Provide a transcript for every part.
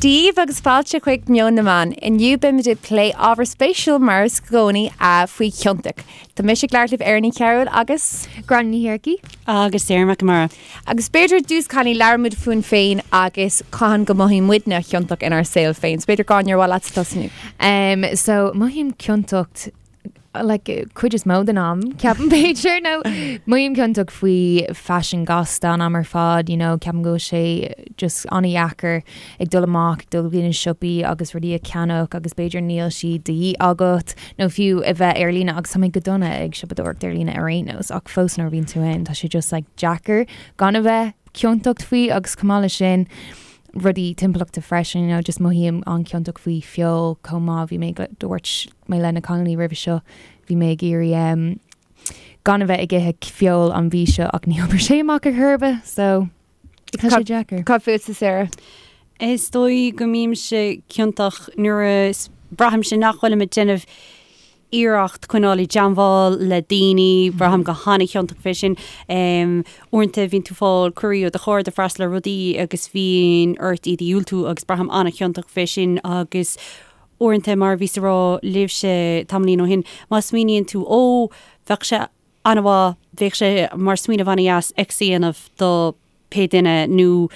Dia daoibh agus fáilte chuig Meon na Meán. Inniu beimid ag plé ábhar spéisiúil mar is gcónaí faoi chiontacht. Tá mise ag labhairt libh Erin Ní Chearúil agus. Gráinne Ní Shearcaigh. Agus Sarah McNamara. Agus b'fhéidir i dtús cailíní labhróimid fúinn féin agus cathain go mothaíonn muidne ciontach inár saol féin. So b'fhéidir Gráinne ar mhaith leatsa tosnú? Um, so mothaím ciontacht like cuid is mó den am ceapaim b'fhéidir nó mothaím ciontach faoi faisean gasta an am ar fad you know ceapaim go bhfuil sé just an-dheacair ag dul amach ag dul go dtí na siopaí agus rudaí a cheannach agus b'fhéidir níl siad de dhíth agat nó fiú a bheith ar líne agus tá mé go dona ag siopadóireacht ar líne ar aon nós ach fós nuair a bhíonn tú ann tá sé just like deacair gan a bheith ciontach faoi agus chomh maith leis sin rudaí timpeallachta freisin you know just mothaím an-chiontach faoi feoil chomh maith bhí mé dúirt mé le na cailíní roimhe seo bhí mé ag iarraidh um, gan a bheith ag ithe feoil an mhí seo ach ní oibreoidh sé amach ar chor ar bith so tá sé deacair. Cad fútsa Sarah? Is dóigh go mbímse ciontach nuair a braithimse nach bhfuilim ag déanamh iarracht coinneáil i dteangmháil le daoine, braithim go han-chiontach fé sin. Uaireanta bhíonn tú fáil cuirí ó do chairde freastal ar rudaí agus bíonn ort iad a dhiúltú agus braithim an-chiontach fé sin agus uaireanta mar a bhíos a rá libhse tamaillín ó shin, má smaoiníonn tú ó, bheadh sé an-mhaith, bheadh sé mar smaoineamh an-dheas X a dhéanamh do pé duine nó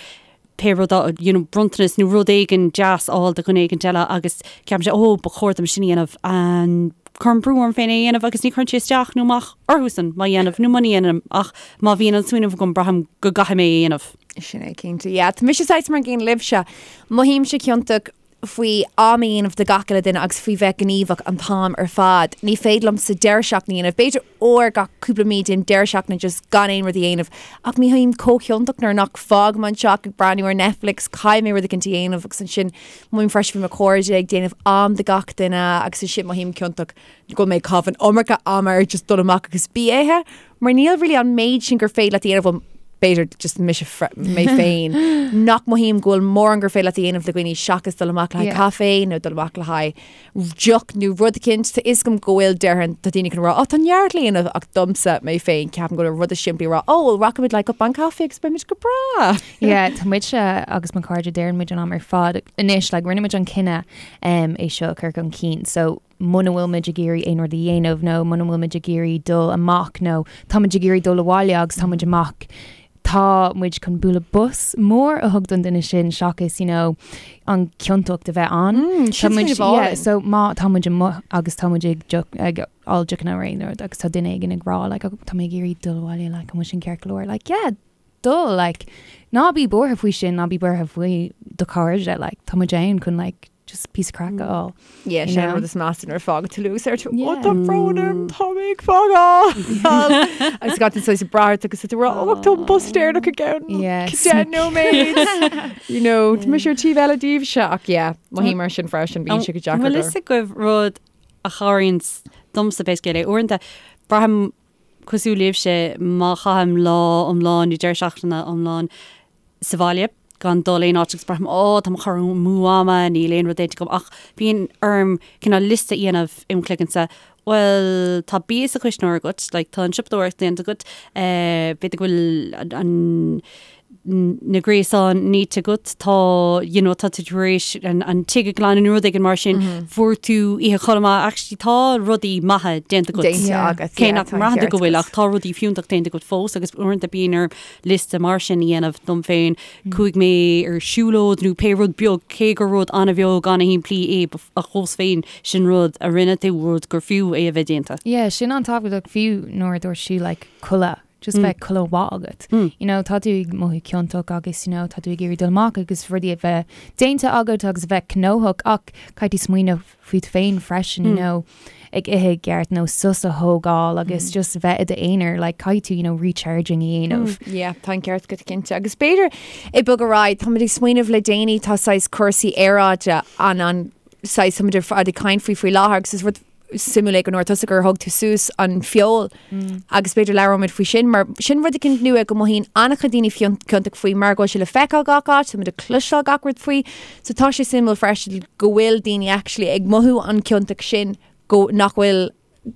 pé rud, you know, bronntanas nó rud éigin deas a fháil do dhuine éigin eile agus ceapaimse, ó, ba chóir dom sin a dhéanamh and cuirim brú orm féin é a dhéanamh agus ní chuireann sé isteach nó amach orthusan má dhéanaim nó muna dhéanaim ach má bhíonn an smaoineamh agam braithim go gcaithfidh mé é a dhéanamh. Sin é cinnte. Yeah, tá mise saghas mar an gcéanna libhse. Mothaímse ciontach faoi am a dhéanamh do gach uile duine agus faoi bheith gníomhach an t-am ar fad. Ní féidir liomsa deireadh seachtaine a dhéanamh. B'fhéidir uair gach cúpla mí déanaim deireadh seachtaine just gan aon rud a dhéanamh. Ach mothaím chomh ciontach nuair nach fágaim an teach ag breathnú ar Netflix, caithfidh mé rud éicint a dhéanamh agus ansin mothaím freisin faoi mo chairde ag déanamh am do gach duine agus ansin mothaím ciontach go bhfuil mé ag caitheamh an iomarca ama ar just dul amach agus bia a ithe. Mar níl really an méid sin gur féidir leat a dhéanamh, bhuel, b'fhéidir just mise mé féin, nach mothaím go bhfuil mórán gur féidir leat a dhéanamh le dhaoine seachas dul amach le haghaidh caife nó dul amach le haghaidh deoch nó rud eicínt. Tá fhios agam go bhfuil déarfainn tá daoine chun rá, ó tá neart le dhéanamh ach domsa mé féin ceapaim go bhfuil rud is simplí a rá, ó well rachaimid le cupán caife agus beimid go breá. Yeah, tá muidse agus mo chairde deireann muid an am ar fad anois like rinne muid an cinneadh um, é seo a chur chun cinn so muna bhfuil muid ag iarraidh aon rud a dhéanamh nó muna bhfuil muid ag iarraidh dul amach nó tá muid ag iarraidh dul abhaile agus tá muid amach, tá muid chun bualadh bos mór a thug don duine sin seachas you know, an ciontacht a bheith ann. Mm, Tá muid, sin yeah, so má tá muid amuigh agus tá muid ag deoch- ag ól deochanna nó aon rud agus tá duine éigin ag rá like, oh, tá mé ag iarraidh dul abhaile like, an bhfuil sin ceart go leor like, yeah, dul like, ná bí buartha faoi sin, ná bí buartha faoi do chairde like, tá muid ann chun like, just píosa craic a fháil. Yeah, sin an rud is measa nuair a fágann tú luas ar tú ó tá brón orm tá mé ag fágáil. Agus gach duine saghas ag brath ort agus tú rá ó tá an bus deireanach i gceann 10 nóiméad. You know, tá mise ar taobh eile díobhse ach yeah, mothaím mar sin freisin bíonn sé go deacair. Bhfuil fhios agaibh rud a chabhraíonn domsa pé scéal é uaireanta braithim cosúil libhse má chaithim lá iomlán nó deireadh seachtaine iomlán sa bhaile gan dul aon áit agus braithim ó tá mé ag cur amú ama, níl aon rud déanta agam ach bíonn orm cineál liosta a dhéanamh im chloigeannsa, bhuel tá bia sa chuisneoir agat, like tá an siopadóireacht déanta agat, eh b'fhéidir go bhfuil an na gréasáin nite agat, tá you know tá tú tar éis an an tigh a ghlanadh nó rud éigin mar sin, fuair tú oíche chodladh maith, actually tá rudaí maithe déanta agat. Déanta agat, Cé yeah, nach tá an mbraitheann tú ceart go bhfuil agat. ach tá rudaí fiúntach déanta agat fós agus uaireanta bíonn orm liosta mar sin a dhéanamh dom féin, chuaigh mé ar siúlóid nó pé rud beag, cé gur rud an-bheag, an-shimplí é, ach fós féin, sin rud a rinne tú, rud gur fiú é a bheith déanta. Yeah, sin an-tábhachtach fiú nuair a dúirt sí like codladh, just bheith codladh mhaith agat. You know, tá tú ag mothú ciontach agus you know, tá tú ag iarraidh dul amach agus rudaí a bheith déanta agat agus a bheith gnóthach ach caithfidh tú smaoineamh fút féin freisin, you know, ag ithe i gceart nó sos a thógáil agus just a bheith i d'aonar, like caithfidh tú, you know, recharging a dhéanamh. Yeah, tá an ceart agat cinnte. Agus b'fhéidir ag bogadh ar aghaidh, táimid ag smaoineamh le déanaí tá saghas cúrsaí aeráide an an saghas táimid ar fad ag caint faoi faoi láthair agus is rud suimiúil é go ndúirt tusa gur thug tú suas an feoil agus b'fhéidir labhróimid faoi sin mar sin rud eicínt nua go mothaíonn an-chuid daoine ciontach faoi mar go bhfuil sé le feiceáil gach áit, táimid ag cloisteáil gach rud faoi. So tá sé suimiúil freisin go bhfuil daoine actually ag mothú an ciontach sin go nach bhfuil.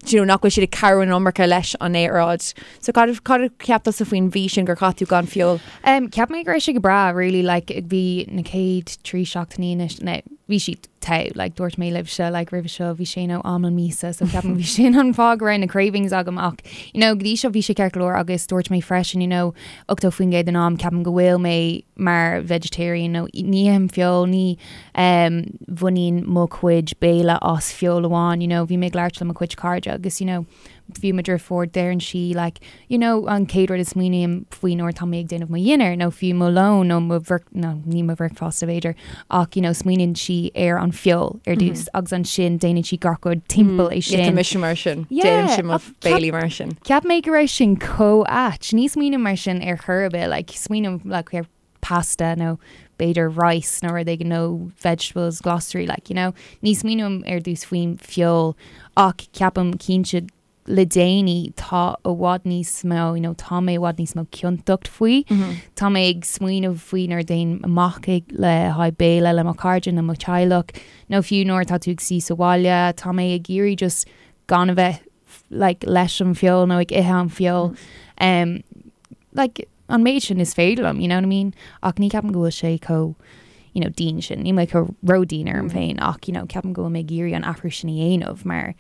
do you know, nach bhfuil siad ag cabhrú an iomarca leis an aeráid. So cad cad a cheap tusa faoin mhí sin gur chaith tú gan feoil? Um, cheap mé go raibh sé go breá, really, like, bhí na chéad 3 seachtainí anois, no, bhí siad togha, like, dúirt mé libhse, like, roimhe seo, bhí sé nó am an míosa, so ceapaim bhí sin an fáth go raibh na cravings agam ach, you know, go dtí seo bhí sé ceart go leor agus dúirt mé freisin, you know, 80% den am ceapaim go bhfuil mé mar vegetarian nó ní ithim feoil, ní um, bhaineann mo chuid béile as feoil amháin, you know, bhí mé ag labhairt le mo chuid cairde agus, you know, fiú mo dheirfiúr deireann sí like, you know, an chéad rud a smaoiním faoi nuair atá mé ag déanamh mo dhinnéar nó fiú mo lón nó mo bhrec no, ní mo bhricfeasta b'fhéidir ach you know, smaoiníonn sí ar an feoil ar dtús agus ansin déanann sí gach rud timpeall é Yeah, tá sin. mise mar sin. Yeah, Déanaimse mo ach ceap- béilí mar sin. Cheap mé go raibh sin chomh ait. Ní smaoiním mar sin ar chor ar bith, like, smaoiním like, ar pasta nó b'fhéidir rice nó rud éigin nó vegetables, glasraí like, you know. Ní smaoiním ar dtús faoin feoil ach ceapaim cinnte le déanaí tá i bhfad níos mó, you know, tá mé i bhfad níos mó ciontacht faoi. Tá mé ag smaoineamh faoi nuair a théim amach ag le haghaidh béile le mo chairde nó mo theaghlach nó fiú nuair atá tú ag suí sa bhaile, tá mé ag iarraidh just gan a bheith like leis an feoil nó ag ithe an feoil. Um, like, an méid sin is féidir liom, you know what I mean? Ach ní ceapaim go bhfuil sé chomh, you know, dian sin. Níl mé chomh ródhian orm féin ach, you know, ceapaim go bhfuil mé ag iarraidh an athrú sin a dhéanamh mar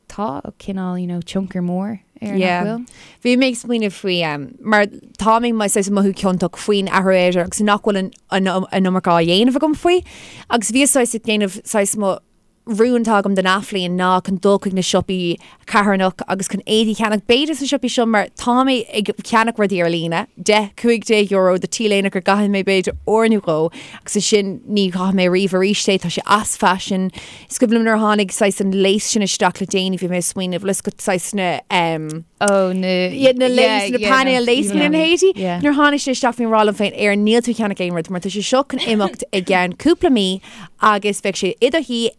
tá cineál, you know, tionchar mór air Yeah. nach bhfuil? Bhí mé ag smaoineamh faoi um, mar tá mé mar saghas mothú ciontach faoin athrú aeráide agus nach bhfuil an, an, an iomarca á dhéanamh agam faoi. Agus bhí saghas ag déanamh saghas mo rún atá agam don athbhliain ná chun dul chuig na siopaí carthanach agus chun éadaí a cheannach b'fhéidir sna siopaí seo mar tá mé ag ceannach rudaí ar líne, 10, €15 do T-léine go gcaithfidh mé b'fhéidir uair nó dhó agus ansin ní chaithfidh mé riamh arís é, tá sé as faisean. Is cuimhin liom nuair a tháinig saghas an lace sin isteach le déanaí bhí mé ag smaoineamh le go saghas na um, Oh, na Yeah, na lace, na painéil lace na héadaí. Yeah. Nuair a tháinig sé isteach bhí mé ag rá liom féin ar níl tú ag ceannach aon rud mar tá sé seo chun imeacht i gceann cúpla mí agus beidh sé i do shuí,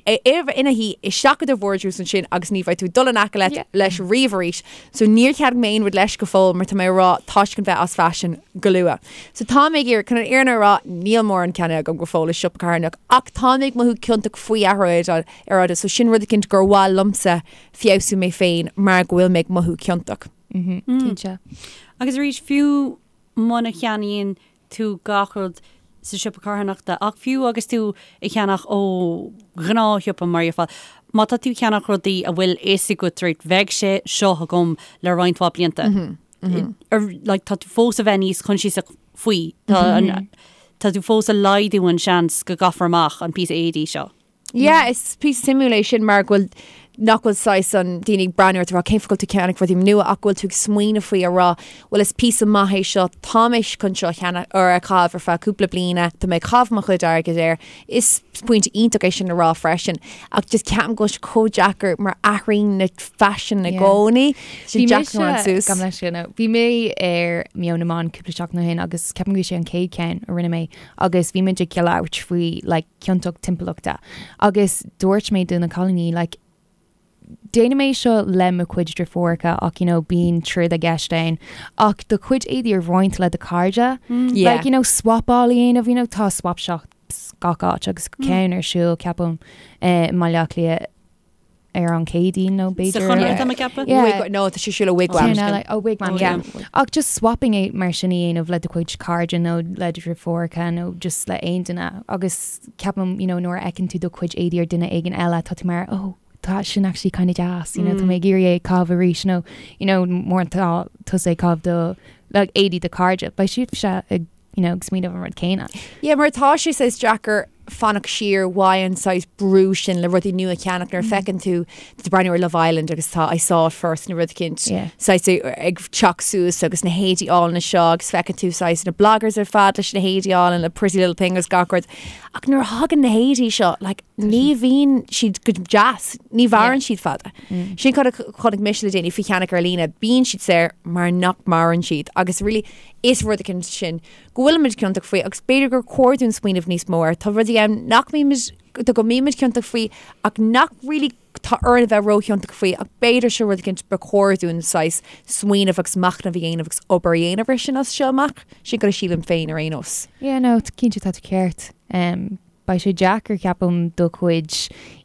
ina shuí isteach i do vardrús ansin agus ní bheidh tú ag dul in aice leat leis riamh arís. So níor cheannaigh mé aon rud leis go fóill mar tá mé ag rá tá sé chun bheith as faisean go luath. So tá mé ag iarraidh, chun an fhírinne a rá, níl mórán ceannaithe agam go fóill i siopa carthanach ach tá mé ag mothú ciontach faoi athrú aeráide so sin rud eicínt gur mhaith liomsa feabhsú mé féin mar go bhfuil mé ag mothú ciontach. Cinnte. Agus arís, fiú muna cheannaíonn tú gach rud sa siopa carthanachta, ach fiú agus tú ag ceannach ó ghnáthshiopa mar dhéarfá, má tá tú ag ceannach rudaí a bhfuil fhios agat right, bheidh sé seo agam le roinnt mhaith blianta. Like, tá tú fós a bheith níos coinsiasach faoi. Tá an, tá tú fós ag laghdú an seans go gcaithfear amach an píosa éadaí seo. Yeah, is píosa suimiúil é sin mar go bhfuil nach bhfuil saghas an daoine ag breathnú ort ag rá cén fáth go bhfuil tú ag ceannach rudaí nua ach go bhfuil tú ag smaoineamh faoi a rá bhuel is píosa maith é seo tá mé chun seo a cheannach or a chaitheamh ar feadh cúpla bliana tá mé ag caitheamh mo chuid airgid air is pointe iontach é sin a rá freisin ach just ceapaim go bhfuil sé chomh deacair mar athraíonn na faisin i gcónaí sé Bhí deacair mise an suas. gabh mo leithscéal nó bhí mé ar Meon na mBan cúpla seachtain ó shin agus ceapaim go bhí sé an chéad cheann a rinne mé agus bhí muid ag labhairt faoi like ciontacht timpeallachta agus dúirt mé do na cailíní like déanaim é seo le mo chuid deirfiúracha ach you know bíonn troid i gceist ann ach do chuid éadaí a roinnt le do chairde Yeah. like you know swapáil a dhéanamh you know tá swap shops gach áit agus ceann ar siúl ceapaim eh, i mBaile Átha Cliath ar an Chéadaoin nó Sa b'fhéidir Chonradh tá mé ag ceapadh? Yeah. Wig, no, tá sé ar siúl i Wigwam. Ceann eile, oh Wigwam, Oh, yeah. yeah. Ach just swapping é mar sin a dhéanamh le do chuid cairde nó le do dheirfiúracha nó just le aon duine agus ceapaim, you know, nuair a fheiceann tú do chuid éadaí ar duine éigin eile tá tú mar, oh, tá sin actually kind of deas, you know, tá mé ag iarraidh é a chaitheamh arís nó, you know, má tá tusa ag caitheamh do, like, éadaí do chairde, beidh siadse ag you know, ag smaoineamh an rud céanna. Yeah, mar tá sé saghas deacair fanacht siar uaidh an saghas brú sin le rudaí nua a cheannach nuair a feiceann tú tú breathnú ar Love Island agus tá I saw it first nó rud eicínt Yeah. saghas ag teacht suas agus na héadaí álainn seo agus feiceann tú saghas na bloggers ar fad leis na héadaí álainn le Pretty Little Thing agus gach rud. Ach nuair a thagann na héadaí seo, like, ní bhíonn siad go deas, ní mhaireann siad fada. Sin cad a chonaic mise le déanaí faoi cheannach ar líne, bíonn siad saor mar nach maireann siad agus really Is rud eicínt sin go bhfuilimid ciontach faoi agus b'fhéidir gur chóir dúinn smaoineamh níos mó air. Tá rudaí ann nach mbímid, go mbímid ciontach faoi ach nach really tá orainn a bheith róchiontach faoi ach b'fhéidir seo rud eicínt ba chóir dúinn saghas smaoineamh agus machnamh a dhéanamh agus obair a dhéanamh air sin as seo amach. Sin cad a sílim féin ar aon nós. Yeah, no, cinnte tá tú ceart. Um. beidh sé deacair ceapaim do chuid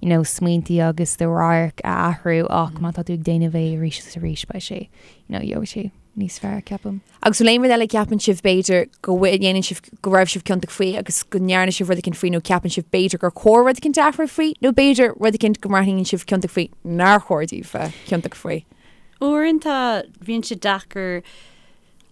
you know smaointí agus do radharc a athrú ach má tá tú ag déanamh é arís is arís beidh sé you know gheobhaidh sé níos fearr ceapaim. Agus bhfuil aon rud eile a cheapann sibh b'fhéidir go ndéanann sibh go raibh sibh ciontach faoi agus go ndearna sibh rud eicínt faoi nó ceapann sibh b'fhéidir gur chóir rud eicínt a athrú faoi nó b'fhéidir rud eicínt go mbraitheann sibh ciontach faoi nár chóir daoibh bheith ciontach faoi? Uaireanta bíonn sé deacair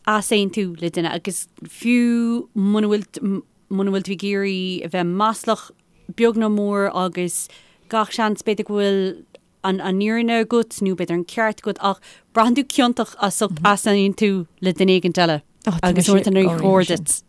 easaontú le duine agus fiú muna bhfuil muna bhfuil tú ag iarraidh a bheith maslach beag nó mór agus gach seans b'fhéidir go bhfuil an an fhírinne agat nó b'fhéidir an ceart agat ach braitheann tú ciontach as ucht easaontú le duine éigint eile agus uaireanta ní chóir duit.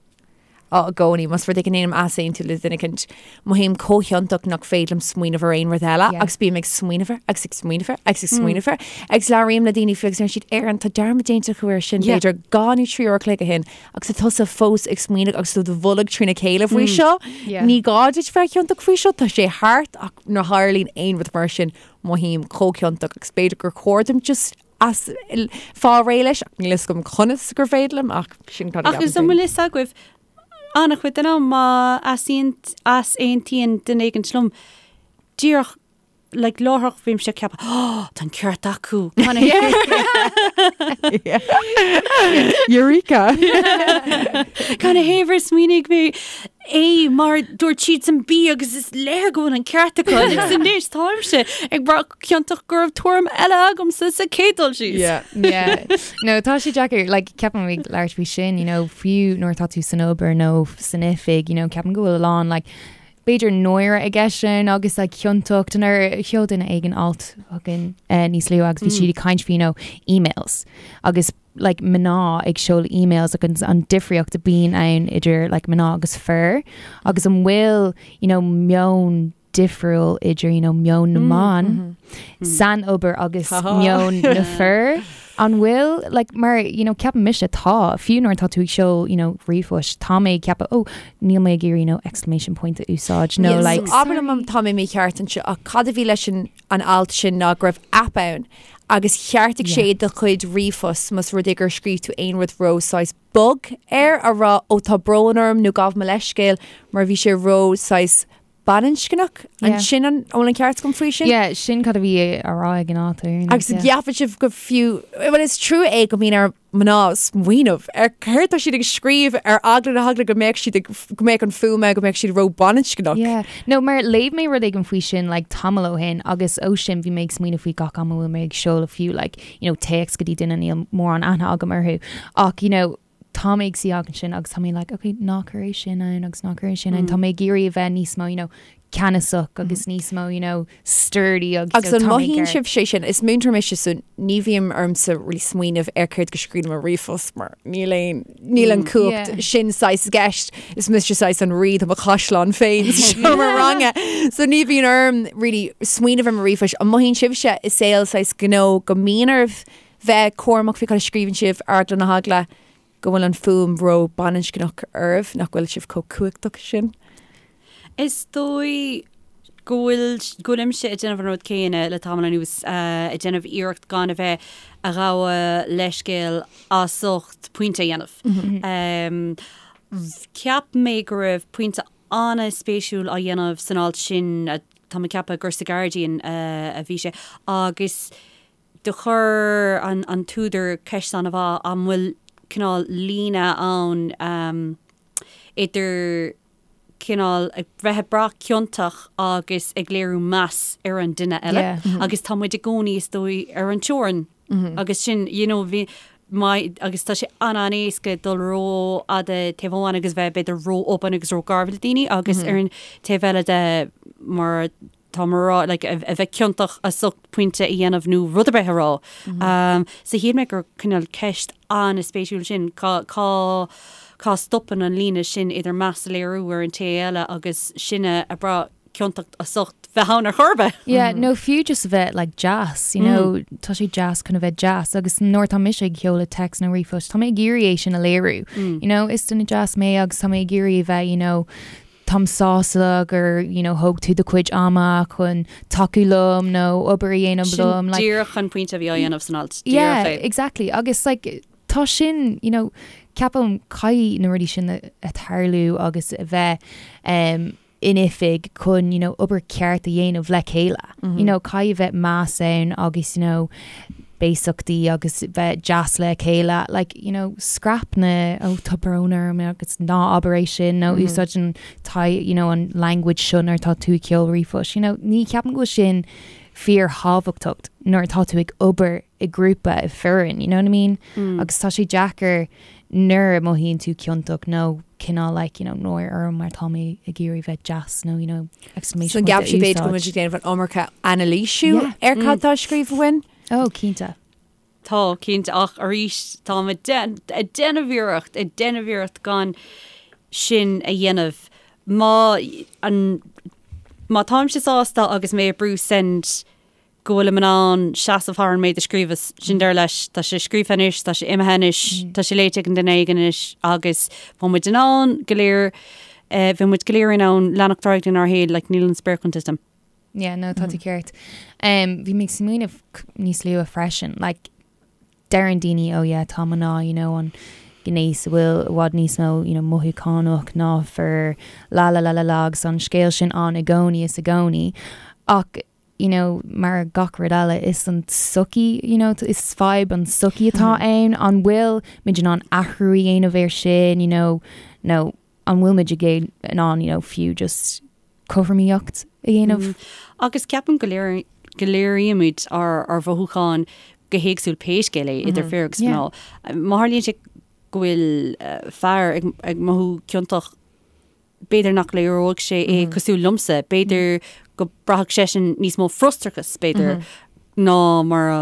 Á, i gcónaí, más rud é go ndéanaim easaontú le duine eicínt, mothaím chomh hiontach nach féidir liom smaoineamh ar aon rud eile agus bím ag smaoineamh air agus ag smaoineamh air agus ag smaoineamh air agus labhraím le daoine faoi agus deir siad Erin, tá dearmad déanta acu air sin b'fhéidir 2 nó 3 uair a chloig ó shin agus tá tusa fós ag smaoineamh agus tú do bholg trína chéile faoi seo. Ní gá duit bheith ciontach faoi seo, tá sé thart ach nuair a tharlaíonn aon rud mar sin mothaím chomh ciontach agus b'fhéidir gur chóir dom just as fáil réidh leis ach níl fhios agam conas gur féidir liom ach sin cad a Ach is an bhfuil fhios agaibh an-chuid den am má easaontaíonn duine éigint liom díreach like láithreach bímse ag ceapadh oh tá an ceart acu Eureka! Canathaobh ar smaoinigh mé A mar dúirt siadsan B agus is léir go bhfuil an ceart acu agus anois táimse ag brath ciontach go raibh tuairim eile agamsa sa chéad dul síos. Yeah. Yeah. No, tá sé deacair, like, ceapaim ag labhairt faoi sin, you know, fiú nuair atá tú san obair nó san oifig, you know, ceapaim go bhfuil a lán, like, b'fhéidir náire i gceist sin agus like, ciontacht nuair a sheol duine éigin alt chugainn eh, níos luaithe agus bhí siad ag caint faoi, you know, emails agus like mná ag seoladh emails agus an difríocht a bíonn ann idir like mná agus fir agus an bhfuil you know meon difriúil idir you know meon na mban san obair agus meon na fir an bhfuil like mar you know ceapaim mise tá fiú nuair atá tú ag seoladh you know ríomhphost tá mé ag ceapadh oh níl mé ag iarraidh you know exclamation point a úsáid nó Yes, like so abair liom má tá mé mícheart anseo ach cad a bhí leis an an alt sin ná go raibh aip ann agus cheartaigh sé do chuid ríomhphost más rud é gur scríobh tú aon rud ró saghas bog air a rá ó tá brón orm nó gabh mo leithscéal mar bhí sé ró saghas baininscneach. An sin an bhfuil an ceart agam faoi sin? Yeah, sin cad a bhí á rá ag an alt ar Agus an gceapann sibh go fiú, bhuel is trua é go mbíonn ar mná smaoineamh ar céard tá siad ag scríobh ar eagla na heagla go mbeadh siad ag, go mbeadh an fuaim ann, go mbeadh siad ró-bhaininscneach. Yeah. No, mar léigh mé rud éigin faoi sin like tamall ó shin agus ó sin bhí mé ag smaoineamh faoi gach am a bhfuil mé ag seoladh fiú like, you know, téacs go dtí duine níl mórán aithne agam orthu ach you know, tá mé ag suí ansin agus tá mé like, okay, ná cuir é sin ann agus ná cuir é sin ann. Tá mé ag iarraidh a bheith níos mó, you know, ceannasach agus níos mó, you know, sturdy agus Agus an mothaíonn sibh sé sin? Is múinteoir mise so ní bhíonn ormsa really smaoineamh ar céard go scríobhaim i ríomhphost mar níl aon níl an cumhacht sin saghas i gceist. Is mise saghas an rí de mo chaisleán féin sa seomra ranga. So ní bhíonn orm really smaoineamh ar mo ríomhphost. An mothaíonn sibhse i saol saghas gnó go mbíonn oraibh bheith cúramach faoi cad a scríobhann sibh ar eagla na heagla go bhfuil an fuaim ró-bhaininscneach oraibh, nach bhfuil sibh chomh cumhachtach sin? Is dóigh go bhfuil, go bhfuilimse ag déanamh an rud céanna le tamall anuas, ag déanamh iarracht gan a bheith a ghabháil leithscéal as ucht pointe a dhéanamh. Cheap mé go raibh pointe an-spéisiúil á dhéanamh san alt sin, tá mé ag ceapadh gur sa Guardian a bhí sé, agus Do chuir an t-údar ceist an-mhaith, an bhfuil cineál líne ann idir cineál ag bheith ag brath ciontach agus ag léiriú meas ar an duine eile agus tá muid i gcónaí is dóigh ar an teorainn agus sin you know bhí my agus tá sé an-an-éasca dul ró-fhada taobh amháin agus bheith b'fhéidir ró-obann agus ró-gharbh le daoine agus ar an taobh eile de mar tá mé a rá, like, a bheith ciontach as ucht pointe a dhéanamh nó rud ar bith a rá. Um, so shíl mé gur cineál ceist an-spéisiúil sin, cá, cá, cá stopann an líne sin idir meas a léiriú ar an té eile agus sinne ag brath ciontacht as ucht bheith ann ar chor ar bith. Yeah, nó fiú just a bheith like deas, you know, tá sé deas chun a bheith deas agus nuair atá mise ag seoladh text nó ríomhphost, tá mé ag iarraidh é sin a léiriú. You know, is duine deas mé agus tá mé ag iarraidh a bheith, you know, táim sásta gur you know thóg tú do chuid ama chun tacú liom nó obair a dhéanamh liom. Sin díreach an pointe a bhí á dhéanamh san alt. Yeah, exactly. Agus like tá sin, you know, ceapaim caithfidh na rudaí sin a tarlú agus a bheith um, in oifig chun you know obair ceart a dhéanamh le chéile. You know caithfidh bheith meas ann agus you know béasachtaí agus bheith deas le chéile like you know scrap na oh tá brón orm agus ná abair é sin nó úsáid an t- you know an language seo nuair atá tú ag seoladh ríomhphost you know ní cheapaim go bhfuil sin fíorthábhachtach nuair atá tú ag obair i grúpa i foireann you know what I mean agus tá sé deacair nuair a mothaíonn tú ciontach nó cineál like you know náire orm mar tá mé ag iarraidh bheith deas nó you know exclamation point a úsáid. So an gceapann sibh b'fhéidir go bhfuil muid ag déanamh an iomarca anailísiú ar cad tá scríofa uainn? Oh cinnte. Tá, cinnte, ach arís táim ag déanamh iarracht, ag déanamh iarracht gan sin a dhéanamh. Má an má táimse sásta agus mé ag brú send go bhfuilim in ann seasamh thar an méid a scríobhas, sin deireadh leis, tá sé scríofa anois, tá sé imithe anois, tá sé léite ag an duine éigin anois agus bheadh muid in ann go léir, bheadh muid go léir in ann leanacht ar aghaidh lenár shaol, like níl an spéir chun titim. Yeah, no, tá tú ceart. Bhí mé ag smaoineamh níos luaithe freisin, like, deireann daoine, oh yeah, tá mná, you know, an gnéas a bhfuil i bhfad níos mó, you know, mothúchánach ná fir, la la la la la, agus an scéal sin ann i gcónaí is i gcónaí. Ach, you know, mar gach rud eile, is an tsochaí, you know, is fadhb an tsochaí atá ann, an bhfuil muid in ann athrú a dhéanamh air sin, you know, nó an bhfuil muid in ann, you know, fiú just cothromaíocht a dhéanamh? Agus ceapaim go léir, go léirímid ár, ár mhothúcháin go héagsúil pé scéal é, idir fir agus mná. Má tharlaíonn sé go bhfuil fear ag, ag mothú ciontach, b'fhéidir nach léireoidh sé é cosúil liomsa, b'fhéidir go braithfeadh seisean níos mó frustrachas, b'fhéidir, ná mar a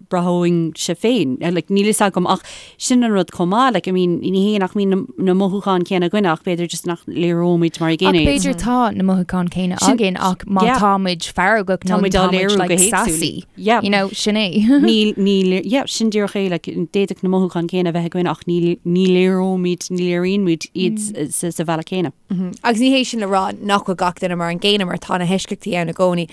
bhraithfinnse féin. Like, níl fhios agam ach sin an rud chomh maith, like, I mean, ní hé nach mbíonn na mothúcháin céanna againn ach b'fhéidir just nach léireoimid mar an gcéanna iad. Ach b'fhéidir tá na mothúcháin céanna againn ach má tá muid feargach nó tá muid like sassy, Yeah. you know, sin é. Níl, níl, yeah, sin díreach é, like, d'fhéadfadh na mothúcháin céanna a bheith againn ach ní, ní léireoimid, ní léiríonn muid iad sa, sa bhealach céanna. Agus ní hé sin le rá nach bhfuil gach duine mar an gcéanna mar tá na heisceachtaí ann i gcónaí.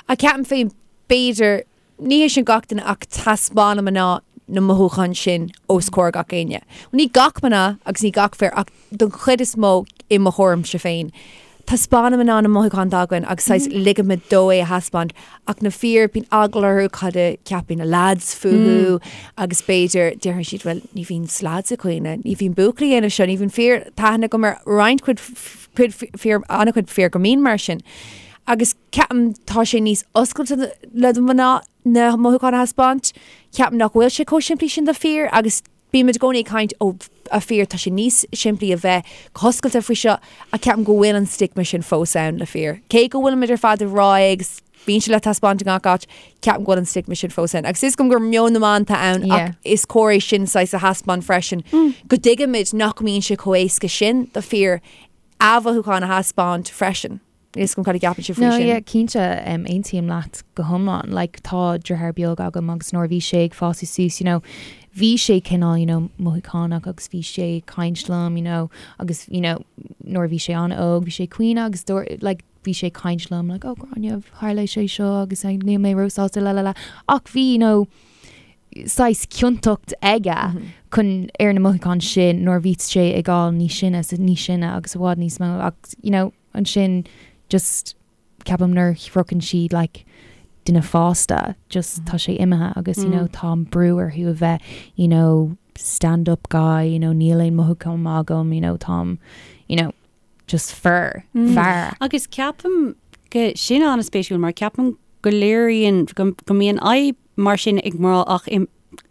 Ach ceapaim féin, b'fhéidir, ní hé sin gach duine ach taispeánann mná na mothúcháin sin os comhair gach éinne. Ní gach mná agus ní gach fir ach don chuid is mó i mo thuairimse féin. Taispeánann mná na mothúcháin atá againn agus saghas ligimid dó é a thaispeáint ach na fir bíonn eagla orthu cad a cheapfaidh na lads fúthu agus b'fhéidir déarfaidh siad bhuel ní bhíonn lads ag caoineadh, ní bhíonn buachaillí ag déanamh seo, ní bhíonn fir tá aithne agam ar roinnt cuid cuid fir an-chuid fir go mbíonn mar sin. Agus ceapaim tá sé níos oscailte le do mhná na mothúcháin a thaispeáint. Ceapaim nach bhfuil sé chomh simplí sin do fir agus Bímid i gcónaí ag caint ó a fir, tá sé níos simplí a bheith go hoscailte faoi seo ach ceapaim go bhfuil an stigma sin fós ann le fir. Cé go bhfuilimid ar fad ag rá é agus bíonn sé le taispeáint i ngach áit, ceapaim go bhfuil an stigma sin fós ann. Agus is cuma gur meon na mban atá ann ach is cóir é sin saghas a thaispeáint freisin go dtuigimid nach mbíonn sé chomh éasca sin do fir a mhothúcháin a thaispeáint freisin. Níl 'fhios agam cad a cheapann sibh faoi No, sin. yeah, cinnte, um, aontaím leat go hiomlán. Like, tá deartháir beag agam agus nuair a bhí sé ag fás suas, you know, bhí sé cineál, you know, mothúchánach agus bhí sé ag caint liom, you know, agus, you know, nuair a bhí sé an-óg, bhí sé ag caoineadh agus dúirt, like, bhí sé ag caint liom, like, oh, Gráinne, tharla sé seo agus like, níl mé róshásta, la la la. Ach bhí, you know, saghas ciontacht aige chun ar na mothúcháin sin nuair a bhí sé ag fáil níos sine is níos sine agus i bhfad níos mó agus, you know, ansin just ceapaim nuair a shroicheann siad like duine fásta just tá sé imithe agus you know tá an brú orthu a bheith you know stand up guy you know níl aon mothúchán agam you know táim you know just fear fear. Agus ceapaim go sin an-spéisiúil mar ceapaim go léiríonn go go mbíonn fadhb mar sin ag mná ach i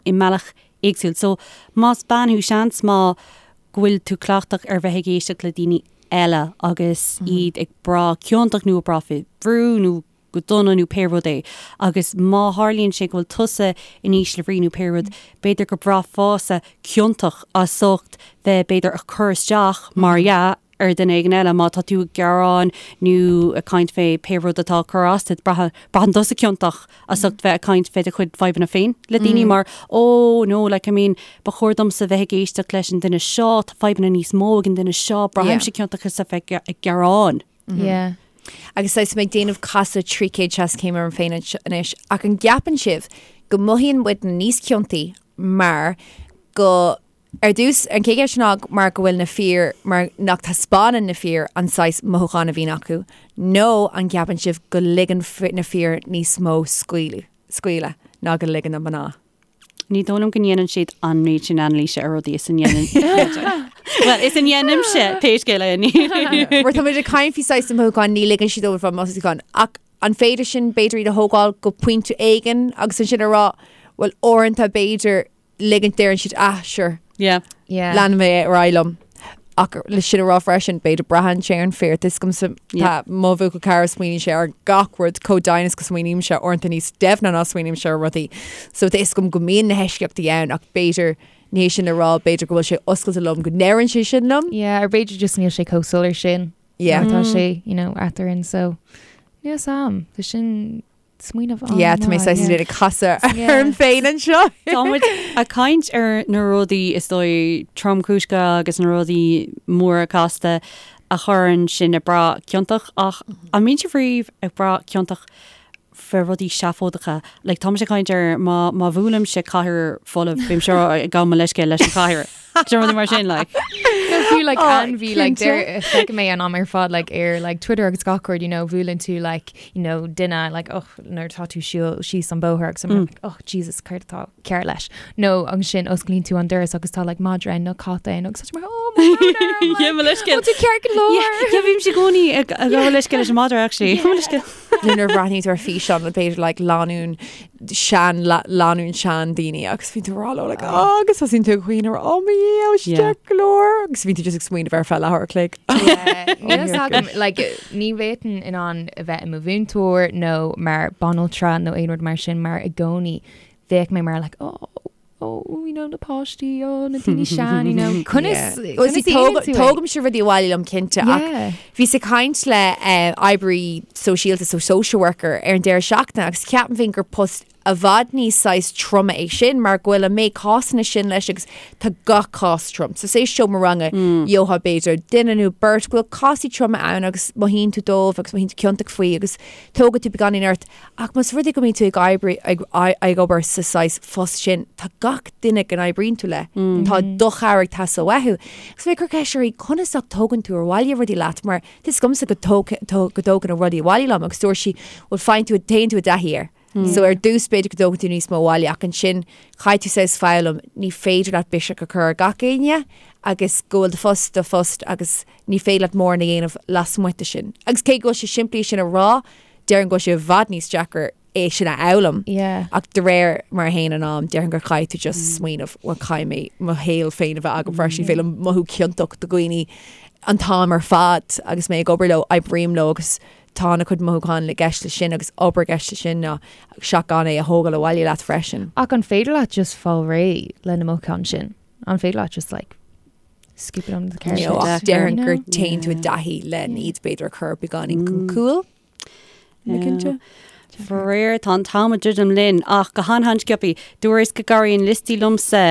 i mbealach éagsúil. So más bean thú seans maith go bhfuil tú cleachtach ar bheith ag éisteacht le daoine eile agus iad ag brath ciontach nó ag brath faoi bhrú nó go dona nó pé rud é. Agus má tharlaíonn sé go bhfuil tusa in ísle bhrí nó pé rud, b'fhéidir go braithfeása ciontach as ucht bheith b'fhéidir ag cur isteach, mar dhea, ar dhuine éigin eile má tá tú ag gearán nó ag caint fé pé rud atá ag cur as duit, braitheann tusa ciontach as ucht bheith ag caint fé do chuid fadhbanna féin le daoine mar oh no like I mean ba chóir domsa bheith ag éisteacht leis an duine seo, tá fadhbanna níos mó ag an duine seo, braithimse ciontach as a bheith ag gearán. Yeah. Agus tá mé ag déanamh casadh 360 céim orm féin anois, ach an gceapann sibh go mothaíonn muid níos ciontaí mar go. Ar dtús, an chéad cheist ná mar go bhfuil na fir, mar nach taispeánann na fir an saghas mothúchán a bhíonn acu, nó an gceapann sibh go ligeann na fir níos mó scaoileadh, scaoileadh ná go ligeann na mná? Ní dóigh liom go ndéanann siad an méid sin anailíse ar rudaí is a ndéanann Well, is a ndéanaimse pé scéal é. Mar tá muid ag caint faoi saghas na mothúcháin, ní ligeann siad dóibh an mothúchán. Ach an féidir sin b'fhéidir iad a thógáil go pointe éigin agus ansin a rá, well uaireanta b'fhéidir ligint deireann siad ah sure Yeah. Yeah. leanfaidh mé ar aghaidh liom. Ach le sin a rá freisin, b'fhéidir braitheann sé ar an fear. Tá a fhios agamsa Yeah. tá mo bhuachaill cara smaoiníonn sé ar gach rud chomh domhain is go smaoinímse uaireanta níos doimhne ná smaoinímse ar rudaí. So tá a fhios agam go mbíonn na heisceachtaí ann ach b'fhéidir ní hé sin a rá b'fhéidir go bhfuil sé oscailte liom go ndeireann sé sin liom. Yeah, or b'fhéidir just níl sé chomh soiléir sin. Yeah. Mar tá sé, you know, eadrainn, so níl a fhios agam. Tá sin smaoineamh an Yeah, tá mé saghas yeah. ag casadh Yeah. orm féin anseo. Tá muid ag caint ar na rudaí is dóigh tromchúiseacha agus na rudaí móra casta a chuireann sinn ag brath ciontach ach an mbíonn sibh riamh ag brath ciontach fé rudaí seafóideacha? Like tá mise ag caint ar má má bhuailimse cathaoir folamh bímse ag gabháil mo leithscéal leis an chathaoir. Do rudaí mar sin like. No, fiú like Oh, ainmhí like cinnte. deir feicim é an am ar fad like ar like Twitter agus gach rud you know bhuaileann tú like you know duine like oh nuair atá tú siúl síos an bóthar agus I'm like oh Jesus céard atá cearr leis nó ansin osclaíonn tú an doras agus tá like madra ann nó cat ann agus tá tú mar oh mo bhrón orm, Yeah, mo leithscéal. oh tú ceart go leor. Yeah, yeah, bhímse i gcónaí ag ag gabháil leithscéal leis an madra actually. Mo leithscéal. Nó nuair a bhreathnaíonn tú ar físeán le b'fhéidir like lánúin sean lánúin sean daoine agus bíonn tú ag rá leo like oh agus tosaíonn tú ag caoineadh oh mo Dhia oh Yeah. ceart go leor agus bíonn tú just ag smaoineamh ar feadh leathuair a chloig. Yeah, Níl a fhios agam, like, ní bhféadfainn in ann a bheith i mo mhúinteoir nó mar banaltra nó aon rud mar sin mar i gcónaí bheadh mé mar like oh oh you know na páistí oh na daoine sean you know conas Well, conas see, a dhéanann tú é? Tógaimse rudaí abhaile liom cinnte ach Yeah. bhíos ag caint le eh, oibrí sóisialta so social worker ar an deireadh seachtaine agus ceapaim féin gur post i bhfad níos saghas troma é sin mar go bhfuil an méid cásanna sin leis agus tá gach cás trom. So say seomra ranga gheofá b'fhéidir duine nó beirt go bhfuil cásaí troma ann agus mothaíonn tú dóibh agus mothaíonn tú ciontach faoi agus tógann tú beagáinín ort Ach más rud é go mbíonn tú ag oibriú, ag, ag obair sa saghas phost sin, tá gach duine go n-oibríonn tú le, tá do chabhair ag teastáil uathu. Agus bhí mé ag cur ceist uirthi, conas ach tógann tú abhaile rudaí leat mar tá a fhios agamsa go dtóg, go dtógaim rudaí abhaile liom agus dúirt sí, bhuel faigheann tú, téann tú i dtaithí air. So ar dtús b'fhéidir go dtógann tú níos mó abhaile ach ansin caithfidh tú saghas foghlaim, ní féidir leat biseach a chur ar gach éinne agus go bhfuil do phost do phost agus ní féidir leat mórán a dhéanamh lasmuigh de sin. Agus cé go bhfuil sé simplí sin a rá, Déarfainn go bhfuil sé i bhfad níos deacra é sin a fhoghlaim. Yeah. Ach de réir mar a théann an am, déarfainn gur caithfidh tú just smaoineamh, bhuel caithfidh mé mo shaol féin a bheith agam freisin, ní féidir liom mothú ciontach do dhaoine an t-am ar fad agus mé ag obair leo, oibrím leo agus tá ana chuid mothúchán i gceist leis sin agus obair i gceist leis sin ná seach gan é a thógáil abhaile leat freisin. Ach an féidir leat just fáil réidh le na mothúcháin sin? An féidir leat just like scoop it under the carpet? No, ach deacair. déarfainn gur No. téann tú i dtaithí le iad b'fhéidir a chur beagáinín chun cúil. Ní cinnte. Faraor, tá an t-am ag druidim linn, ach go han-han-sciobtha, dúrais go gcabhraíonn liostaí liomsa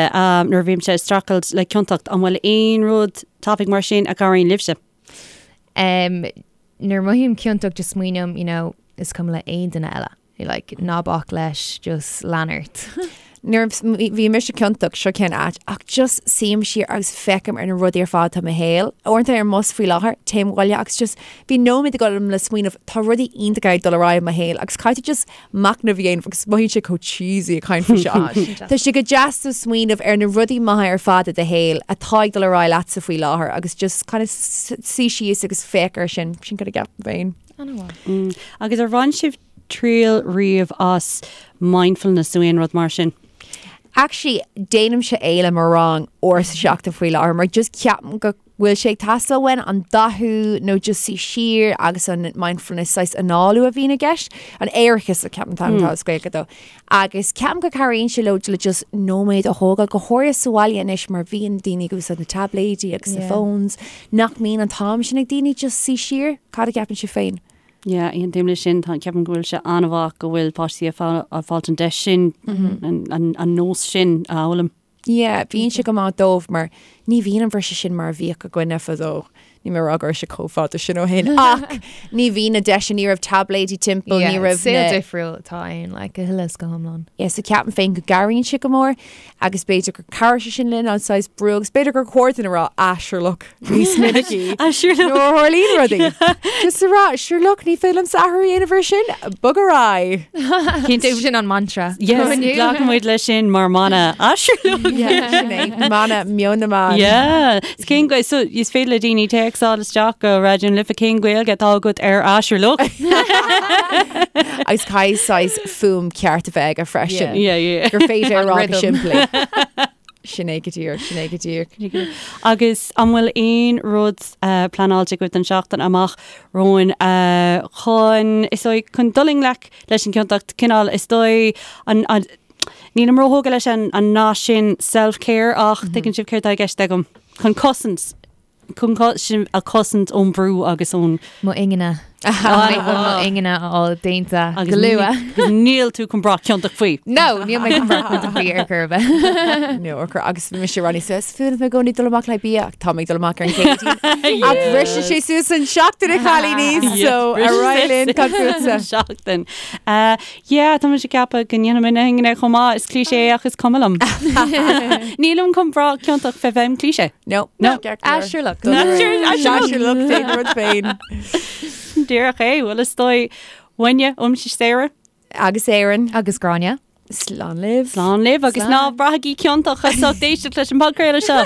nuair a bhímse ag streachailt le ciontacht. An bhfuil aon rud tapaidh mar sin a chabhraíonn libhse? Um, nuair a mothaím ciontach just smaoiním, you know, is cuma le aon duine eile. Like, ná bac leis, just lean ort. Nuair a bhí mise ciontach, seo cén áit, ach just suím siar agus feicim ar na rudaí ar fad atá i mo shaol. Uaireanta ar an mbus faoi láthair, téim abhaile agus just bíonn nóiméad agam le smaoineamh, tá rudaí iontacha ag dul ar aghaidh i mo shaol agus caithfidh tú just machnamh a dhéanamh agus mothaíonn sé chomh cheesy ag caint faoi seo. Tá sé go deas do smaoineamh ar na rudaí maithe ar fad i do shaol atá ag dul ar aghaidh leatsa faoi láthair agus just kind of suí síos agus féach air sin, sin cad a cheapaim féin. An-mhaith. Agus ar bhain sibh triail riamh as mindfulness nó aon rud mar sin? Actually, déanaimse é le mo rang uair sa seachtain faoi láthair mar just ceapaim go bhfuil sé ag teastáil uainn an dathú nó just suí siar agus an mindfulness saghas análú a bhíonn i gceist, an aireachas a ceapaim an t-ainm atá as Gaeilge dó. Agus ceapaim go cabhraíonn sé leo le just nóiméad a thógáil, go háirithe sa bhaile anois mar bhíonn daoine ag úsáid na tabléidí agus na phones, nach mbíonn an t-am sin ag daoine just suí siar. Cad a cheapann sibh féin? Yeah, aontaím leis sin. Tá, ceapaim go bhfuil sé an-mhaith go bhfuil páistí ag fáilt an deis sin, an nós sin a fhoghlaim. Yeah, bíonn sé go maith dóibh mar ní bhíonn an bhriseadh sin mar a bhíodh againne fadó. Níl mé ag rá go raibh sé chomh fada sin ó shin ach ní bhí na deiseanna, ní raibh taibléidí timpeall, ní raibh na. Saol difriúil atá ann, like, go huile is go hiomlán. Yeah, so ceapaim féin go gcabhraíonn sé go mór agus b'fhéidir gur chabhraigh sé sin linn an saghas brú agus b'fhéidir gur chóir dúinn a rá ah sure look níos minicí Ah sure look. nuair a tharlaíonn rudaí. Just a rá sure look ní féidir liomsa athrú a dhéanamh ar sin, bog ar aghaidh. Cinnte. Sin an mantra. Yes, glacann muid leis sin mar mana. Ah sure look. Yeah, sin é. Mana meon na mban. Yeah. Is cén Gaeilge, so is féidir le daoine téacsáil isteach go Raidió na Life cén Gaeilge atá agat ar ah sure look. Agus caithfidh saghas fuaim ceart a bheith aige freisin. Yeah, yeah. Gur féidir a An rá go rhythm. simplí. Sin é go díreach, sin é go díreach. Agus an bhfuil aon rud uh, pleanáilte agaibh don seachtain amach romhainn uh, chun is dóigh chun dul i ngleic leis an gciontacht cineál is dóigh an, an Nílim róthógtha leis an an nath sin self-care ach tuigeann sibh céard atá i gceist agam. Chun cosaint, chun sinn a chosaint ón bhrú agus ón. Mo ingne. Mo ingne a fháil déanta go luath. Agus níl tú chun brath ciontach faoi. No, níl mé chun brath ciontach faoi ar chor ar bith. No, ar chor agus bhí mise rá suas fuair mé i gcónaí dul amach le bia ach tá mé ag dul amach ar an gCéadaoin. Ach briseann sé suas an seachtain a chailíní so ar aghaidh linn cad fútsa. Seachtain. Yeah, tá mise ag ceapadh go ndéanfaidh mé na hingne chomh maith, is cliché ach is cuma liom. Nílim chun brath ciontach fé bheith im cliché. No. No. Ah, sure look. Ah, sure look, déan rud féin. Díreach é, bhuel is dóigh uainne, uaimse Sarah. Agus Erin. Agus Gráinne. Slán libh. Slán libh agus ná braithigí ciontach as ucht éisteacht leis an bpodchraoladh seo.